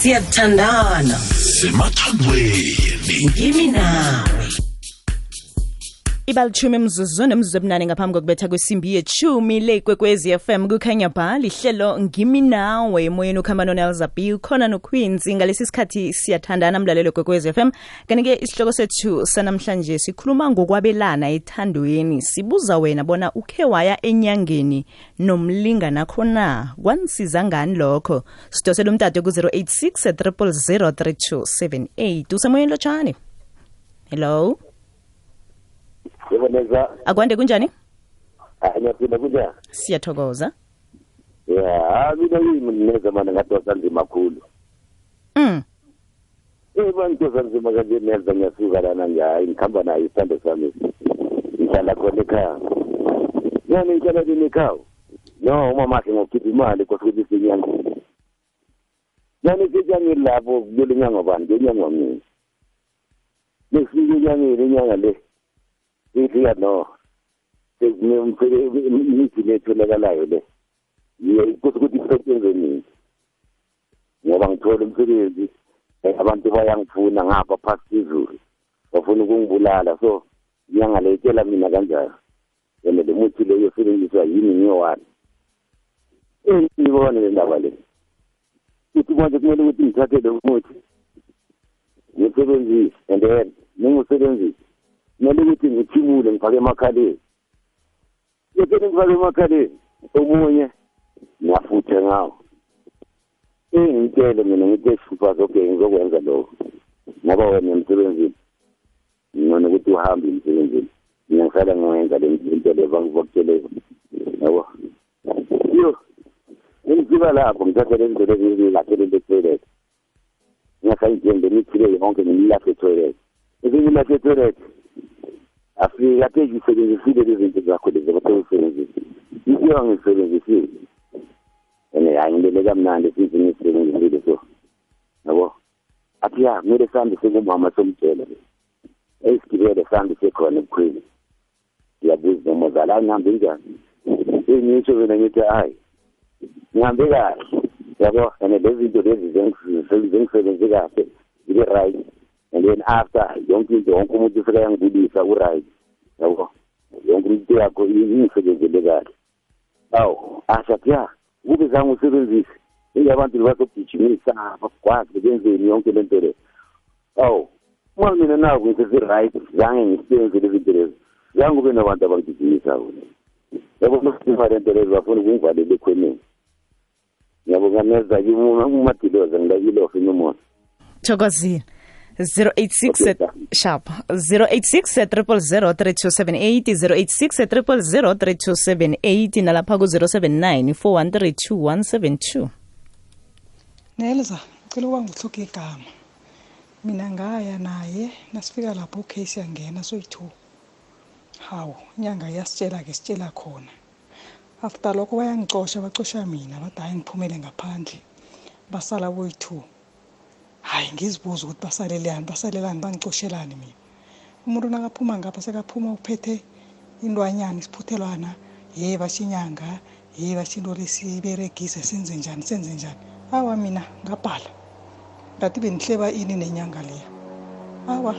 Siyathandana semathandweni ngimi nawe. Ibalitshumi emzuzwini emzubunane ngaphambi kokubetha kwesimbi yechumi le Kwekwezi FM kukhanya ba lihlelo ngimi nawe emoyeni ukhamba noNelzabi khona noQueens ngalesi sikhathi siyathandana mlalelo Kwekwezi FM. Kanike isihloko sethu sanamhlanje sikhuluma ngokwabelana ethandweni, sibuza wena bona ukhe waya enyangeni nomlingana khona kwansiza ngani lokho. Sidosela umtato ku 086 000 3278 usemoyeni lotshani. Hello. Yeboneza. Akwande kunjani? Ngiyaphila kunjani? Siyathokoza. Yeah, mina ngimneza mana ngatosa nzima kakhulu. Ngitosa nzima kanje neza ngiyasuka lana ngikhamba nayo isithando sami. Ngihlala khona ekhaya. Yani ngihlala ekhaya. No, umama wakhe ngokukhipha imali kosuthi sinyanga. Yani sinyanga lapho kule nyanga bani, ngenyanga mina. Lesifike inyanga le. Ithi no. Imithi letholakalayo le. Kusukuthi isebenze nini. Ngoba ngithola umsebenzi abantu bayangifuna ngapha phakathi izulu. Bafuna ukungibulala so ngiyangaletshela mina kanjalo. Yena le muthi le yosebenziswa yini ngiyowani. Ngibona le ndaba le. Uthi manje kumele ukuthi ngithathe le muthi. Ngisebenzise and then ngingusebenzise. Kumele ukuthi ngithimule ngifake emakhaleni. Yekene ngifake emakhaleni. Omunye ngiyafutha ngawo. Ngitshele mina ngithi sifazo okay ngizokwenza lokho. Ngoba wena emsebenzini. Ngone ukuthi uhambe emsebenzini. Ngiyahlala ngiyenza le zinto levangivokutshele. Yabo. Yo. Ngifika lapho ngithathe le zinto ezilahlele le-toilet. Ngiyasayidinga ngimithile yonke ngimlahle e-toilet. Ngimlahle e-toilet. Afika phezulu isebenzisile lezi zinto zakho lezi abathosebenzisa. Isiya ngisebenzisile. Ngiyangilele kamnandi sithi ngisebenzisile so. Yabo. Athi ya kumele sambe sekumama somtshela. Esigibele sambe sekhona ebukhwini. Ngiyabuza nomazala ngihambe njani? Ngisho mina ngithi hayi. Ngihambe kahle. Yabo, lezi zinto lezi zengisebenze kahle. Ile right. And then after yonke into wonke umuntu ufika yangibulisa u-right. Yabo. Yonke into yakho ingisebenzele kahle. Awu, ashathi ya, kube zange usebenzise. Abantu bazogijimisa bakwazi benzeni yonke lento le. Awu, uma mina nawo ngithi right, zange ngisebenzele izinto lezi. Zange ube nabantu abangigijimisa wona. Yabo masifa lento lezi bafuna ukungivalela ekhoneni. Yabo ngameza uMatiloza ngilakile ofinomo. Thokozile. 086 sharp 086 000 3278 086 000 3278 nalapha ku 079 413 172. Nelza ngicela ukuba ngihluke igama. Mina ngaya naye nasifika lapho case yangena soyi2. Hawu inyanga yasitshela ke sitshela khona. After lokho bayangicosha bacosha mina bathi hayi ngiphumele ngaphandle. Basala boyi2. Hayi ngizibuza ukuthi basalelani bangicoshelani mina. Umuntu nakaphuma ngapha sekaphuma uphethe indwanyana isiphuthelwana, bashinyanga, bashinto lesiberegise senze njani. Awa mina ngabhala. Ngathi benihleba ini nenyanga leyo. Awa.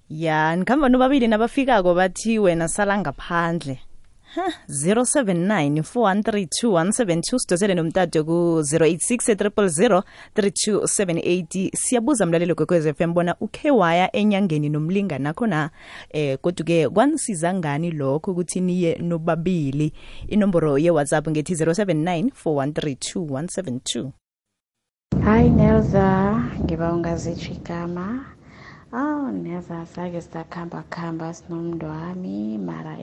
Ya, nikhamba nobabili nabafikako bathi wena sala ngaphandle. 079 413 172 sidosele nomtato ku 086 000 3278. Siyabuza mlalelo Kwekwezi FM bona ukhe waya enyangeni nomlingana khona kodwa-ke kwanisiza ngani lokho ukuthi niye nobabili. Inomboro ye-WhatsApp ngethi 079 413 172. Hi Nelza, ngiba ungazitsho igama. Nelza sake sizakhamba sinomntu wami mara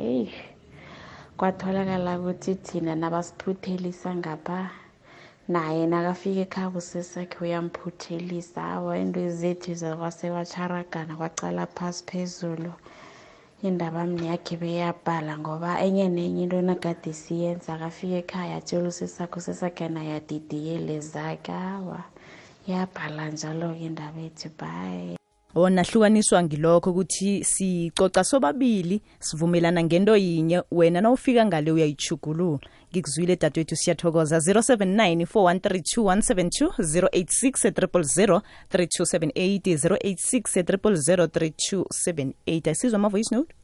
kwatholakala ukuthi thina nabasiphuthelisa ngapha naye nakafika ekhaya usesakhe uyamphuthelisa. Awa into zethu zakwasewacharagana kwacala phasi phezulu. Indaba mni yakhe beyabhala ngoba enye nenye into nakade siyenza akafika ekhaya atshela usesakhe naye adidiyele zakhe. Awa yabhala njalo-ke indaba ethu bye. wona hlukaniswa ngilokho ukuthi sicoca sobabili sivumelana ngento yinye wena nawufika ngale uyayichugulula ngikuzwile dadwethu siyathokoza 079 4132172 086 0003278 086 0003278 asizwa ama voice note.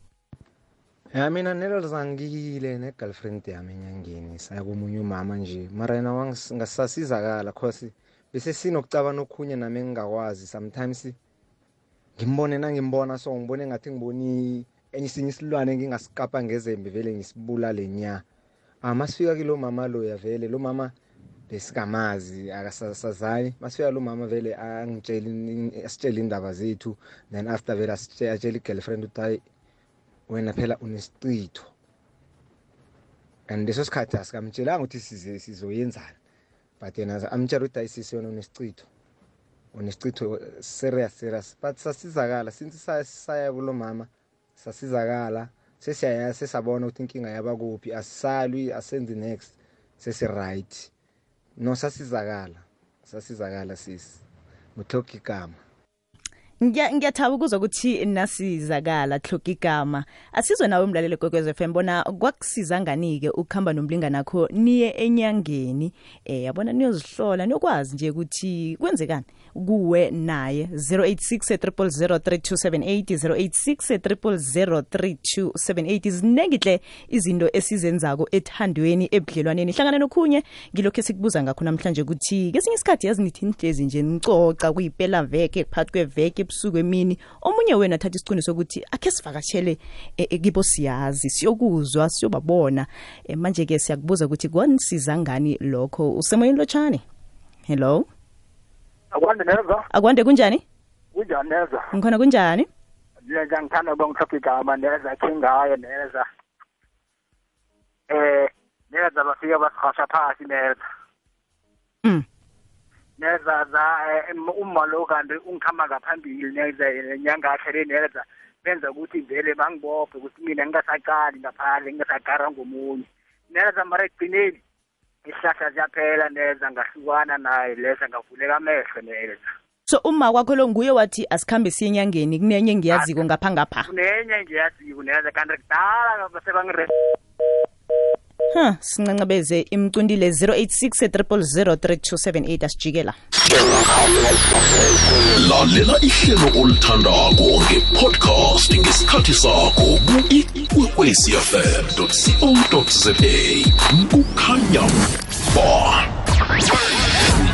Ya mina nelozangile ne-girlfriend yami enyangeni saya komunye umama nje mara yena wangasasizakala cause bese sinokucabana okhunye nami engingakwazi sometimes ngimbona so ngibone ngathi ngiboni enye isilwane ngingasikapa ngezembe vele ngisibulale nya masifika kilo mama lo yavele lo mama besikamazi akasasazani masifika lo mama vele asitshela indaba zethu then after vele asitshela i-girlfriend ukuthi wena phela unesicitho and leso sikhathi asikamtshelanga ukuthi sizoyenzana but yena amtshela ukuthi ayisisi yona unesicitho serious but sasizakala since saya kulo mama sasizakala sesiyabona ukuthi inkinga yabakuphi asisalwi asenze next sesi-right no sasizakala sisi muthoka igama. Ngiyathaba ukuzwa ukuthi nasizakala hloka igama asizwe nawe umlaleli Kwekwezi FM bona kwakusiza nganike ukuhamba nomlingani nakho niye enyangeni yabona niyozihlola niyokwazi nje ukuthi kwenzekani kuwe naye 086 0003278 izinengihle izinto esizenzako ethandweni ebudlelwaneni hlangana nokhunye ngilokho esikubuza ngakho namhlanje ukuthi kesinye isikhathi yazi nithi nihlezi nje nicoca kuyiphela veke phakathi kweveke ebusuku emini omunye wena athatha isiqiniso ukuthi akhe sivakashele kibo siyazi siyokuzwa siyobabona manje ke siyakubuza ukuthi kwanisiza ngani lokho usemoyeni lotshani. Hello Akwande neza. Akwande kunjani? Kunjani neza? Ngikhona kunjani? Ngiyangithanda ukungithoka igama neza kingayo neza. Neza bafika basihasha phasi neza. Neza uma lo kanti ungikhama ngaphambili neza inyanga yakhe neza benza ukuthi vele bangibophe ukuthi mina ngingasaqali ngaphandle ngingasaqara ngomunye. Neza mara egcineni isihlahla siyaphela neza ngahlukana naye lesa ngavuleka amehlo neza. So uma kwakho lo nguye wathi asikhambe siye enyangeni kunenye ngiyaziko ngapha kunenye ngiyaziko neza kanti kudala basebangire sincancabeze imcundile 086 asijikela. Lalela ihlelo olithandako nge-podcast ngesikhathi sakho ku-ikwekwecfm.co.za kukhanya ba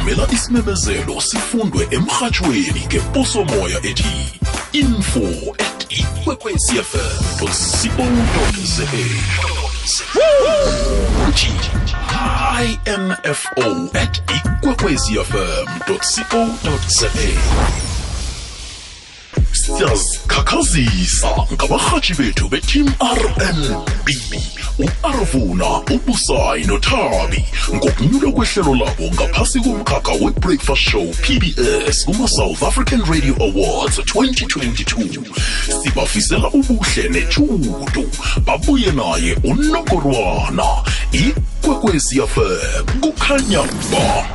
umela isimemezelo sifundwe emrhatshweni ngeposomoya ethi info@ikwekwecfm.co.za info@ikwekwecfm.co.za Siyazikhakhazisa ngabarhatshi bethu be-Team RNB u-Arvuna, uBusayi noThabi ngokunyulwa kwehlelo labo ngaphasi komkhakha we-Breakfast Show PBS kuma-South African Radio Awards 2022. Sibafisela ubuhle nechudu babuye naye uNongorwana. Ikwekwezi FM kukhanya ba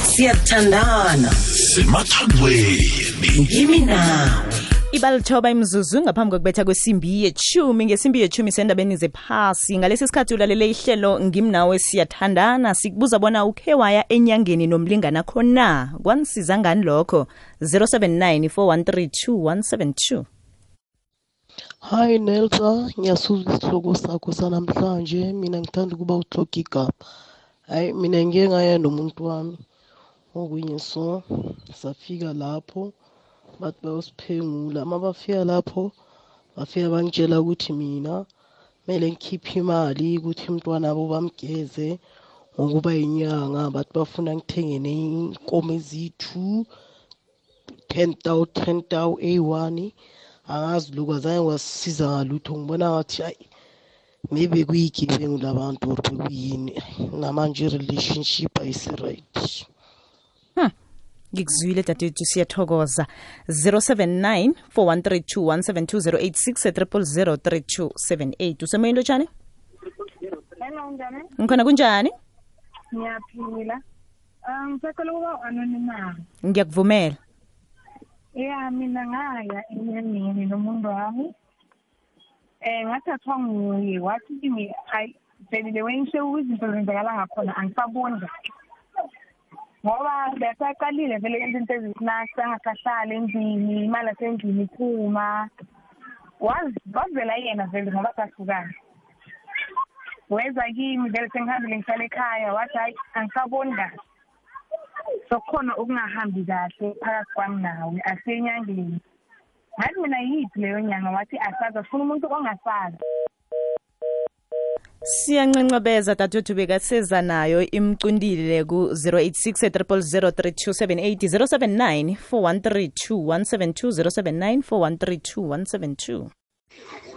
siyathandana semathandweni ngimi nawe. Ibalithoba imzuzu ngaphambi kokubetha kwesimbi ye-10 ngesimbi ye-10 sendabeni zephasi ngalesi sikhathi ulalele ihlelo ngimnawe siyathandana sikubuza bona ukhe waya enyangeni nomlingana khona kwanisiza ngani lokho 079 4132172. Hi Nelsa, ngiyasuzwa isihloko sakho sanamhlanje. Mina ngithanda ukuba uhloka igama. Hayi mina ngike ngaya nomuntu wami okunye so safika lapho bathi bayosiphengula. Mabafika lapho bafika bangitshela ukuthi mina kumele ngikhiphe imali ukuthi umntwana wabo bamgeze ngokuba inyanga. Bathi bafuna ngithengene inkomo ezithu 10,000 A1. Angazi lokho azange wasisiza ngalutho. Ngibona ngathi hayi maybe kuyigebengu labantu or bekuyini namanje relationship ayisi-right. Ngikuzwile dadethu siyathokoza 079 4132172 086 usemoyeni lotshani? Hello njani? Ngikhona kunjani? Ngiyaphila. Ngisacela ukuba anonymous. Ngiyakuvumela. Ya mina ngaya enyangeni nomuntu wami. Ngathathwa nguye wathi kimi hayi vele wengisho izinto zenzakala ngakhona angisaboni kahle. Ngoba besaqalile vele izinto ezisinasa angasahlala endlini imali asendlini iphuma. Wazivela yena vele ngoba sahlukana. Weza kimi vele sengihambile ngihlala ekhaya wathi hayi angisaboni kahle. Sokhona ukungahambi kahle phakathi kwami nawe asenyangeni. Ngathi mina yithi leyo nyanga wathi asaza ufuna umuntu ongasazi. Siyanqenqabeza dadewethu bekaseza nayo imcundile ku 086 0003278 079 4132172 079 4132172.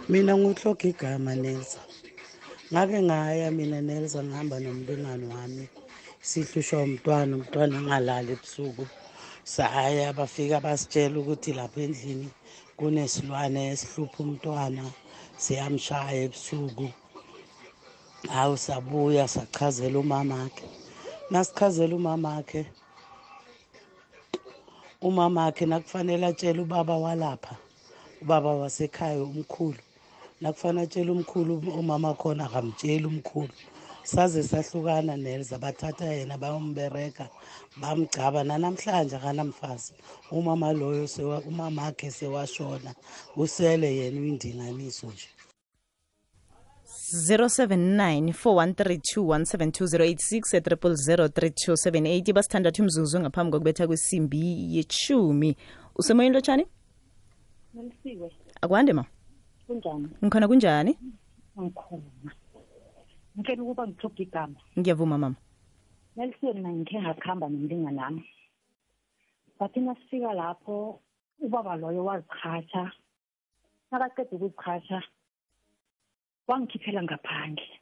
Mina ngihloga igama Nelsa. Ngake ngaya mina Nelsa ngihamba nomlingani wami. Sihlushwa umntwana engalali ebusuku. Saya bafika basitshela ukuthi lapha endlini kunesilwane esihlupha umntwana siyamshaya ebusuku. Hawu sabuya sachazela umamakhe. Nasichazela umamakhe nakufanele atshele ubaba walapha. Ubaba wasekhaya umkhulu. Nakufanele atshele umkhulu umama khona akamtsheli umkhulu. Saze sahlukana Nelsa bathatha yena bayombereka bamgcaba namhlanje akanamfazi. Umama loyo umamakhe sewashona usele yena uyindinganiso nje. 079 4132172 086 basithandathu imzuzu ngaphambi kokubetha kwesimbi yechumi. Usemoyeni lotshani? Nalisiwe. Akwande ma? Kunjani? Ngikhona kunjani? Ngikhona. Ngicela ukuba ngithobe igama. Ngiyavuma mama. Nalisiwe mina ngikhe ngakhamba nomlingani nami. Bathi nasifika lapho ubaba loyo wazichacha. Nakaqeda ukuzichacha wangikhiphela ngaphandle.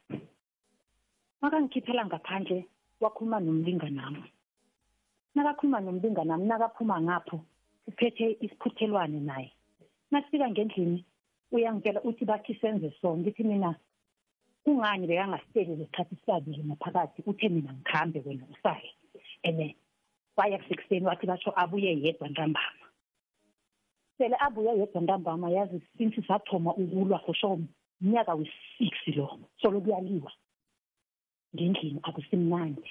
Makangikhiphela ngaphandle wakhuluma nomlingani nami. Nakakhuluma nomlingani nami nakaphuma ngapho uphethe isiphuthelwane naye. Nasifika ngendlini uyangitshela uthi bathi senze so ngithi mina kungani bekangasiteli lesikhathi sibabili ngaphakathi uthe mina ngikhambe wena usaye. Waya kusekuseni wathi basho abuye yedwa ntambama. Sele abuye yedwa ntambama yazi since sathoma ukulwa kusho umnyaka we-6 lo solo kuyaliwa ngendlini akusimnandi.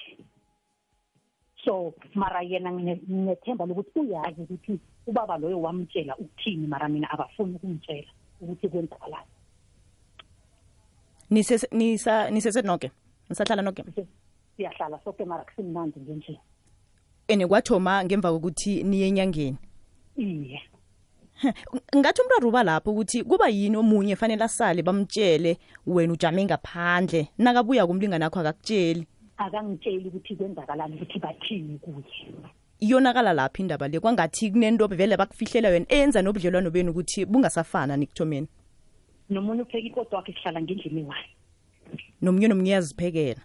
So mara yena nginethemba lokuthi uyazi ukuthi ubaba loyo wamtshela ukuthini mara mina abafuni ukumtshela ukuthi kwenzakalani. Nisese noke? Nisahlala noke? Siyahlala soke mara kusimnandi ngendlini. Kwathoma ngemva kokuthi niye enyangeni? Iye. Ngathi umraro uba lapho ukuthi kuba yini omunye fanele asale bamtshele wena ujame ngaphandle nakabuya kumlingani akho akakutsheli. Akangitsheli ukuthi kwenzakalani ukuthi bathini kuye. Iyonakala lapha indaba le kwangathi kunento vele bakufihlela wena enza nobudlelwano benu ukuthi bungasafana nikuthomeni. Nomunye upheka ikodo wakhe sihlala ngendlini wayo. Nomunye yaziphekela.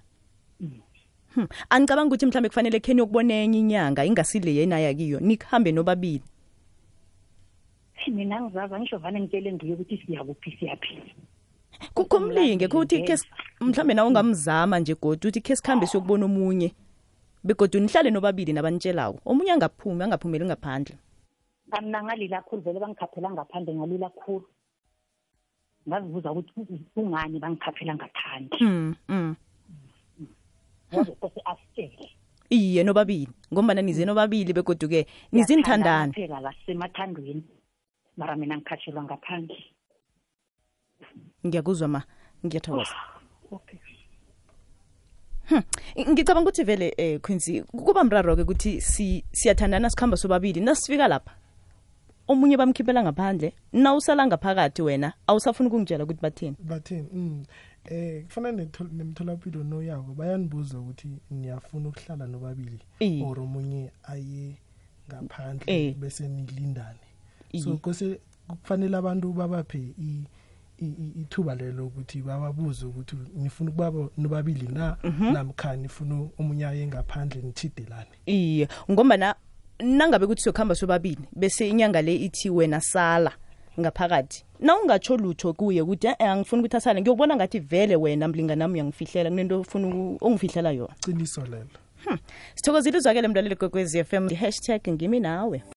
Angicabanga ukuthi mhlambe kufanele kheni yokubona enye inyanga ingasile yena yakiyo nikhambe nobabili. Mina ngizaza ngisho vane ngitshele ngiye ukuthi siyakuphi siyaphi. Kukumlinge ukuthi mhlambe nawe ungamzama nje godwa uthi ke sikhambe siyokubona omunye. Begodwa nihlale nobabili nabanitshelawo. Omunye angaphumeli ngaphandle. Mina ngalila kakhulu vele bangikhaphela ngaphandle ngalila kakhulu. Ngazibuza ukuthi kungani bangikhaphela ngaphandle. Ngoba asitshele. Iye nobabili ngoba nize nobabili begodwa ke nizinthandana. Phela la semathandweni. Mara mina ngikhatshelwa ngaphandle. Ngiyakuzwa ma, ngiyathokoza. Okay. Ngicabanga ukuthi vele Quincy kuba mraro ke ukuthi siyathandana sikhamba sobabili nasifika lapha. Omunye bamkhiphela ngaphandle, na usala ngaphakathi wena awusafuna ukungitshela ukuthi bathini. Kufanele nemtholapilo noyako bayanibuza ukuthi niyafuna ukuhlala nobabili or omunye aye ngaphandle bese nilindane. So kufanele abantu babaphe ithuba lelo ukuthi bababuze ukuthi nifuna ukuba nobabili na namkha nifuna omunye aye ngaphandle nithidelane. Iye ngoba nangabe ukuthi sokhamba sobabili bese inyanga le ithi wena sala ngaphakathi na ungatsho lutho kuye ukuthi angifuni ukuthi asale ngiyobona ngathi vele wena mlingani nami uyangifihlela kunento ufuna ungifihlela yona. Qiniso lelo. Sithokozile uzwakele mlaleli kwekwezi FM #ngimi nawe.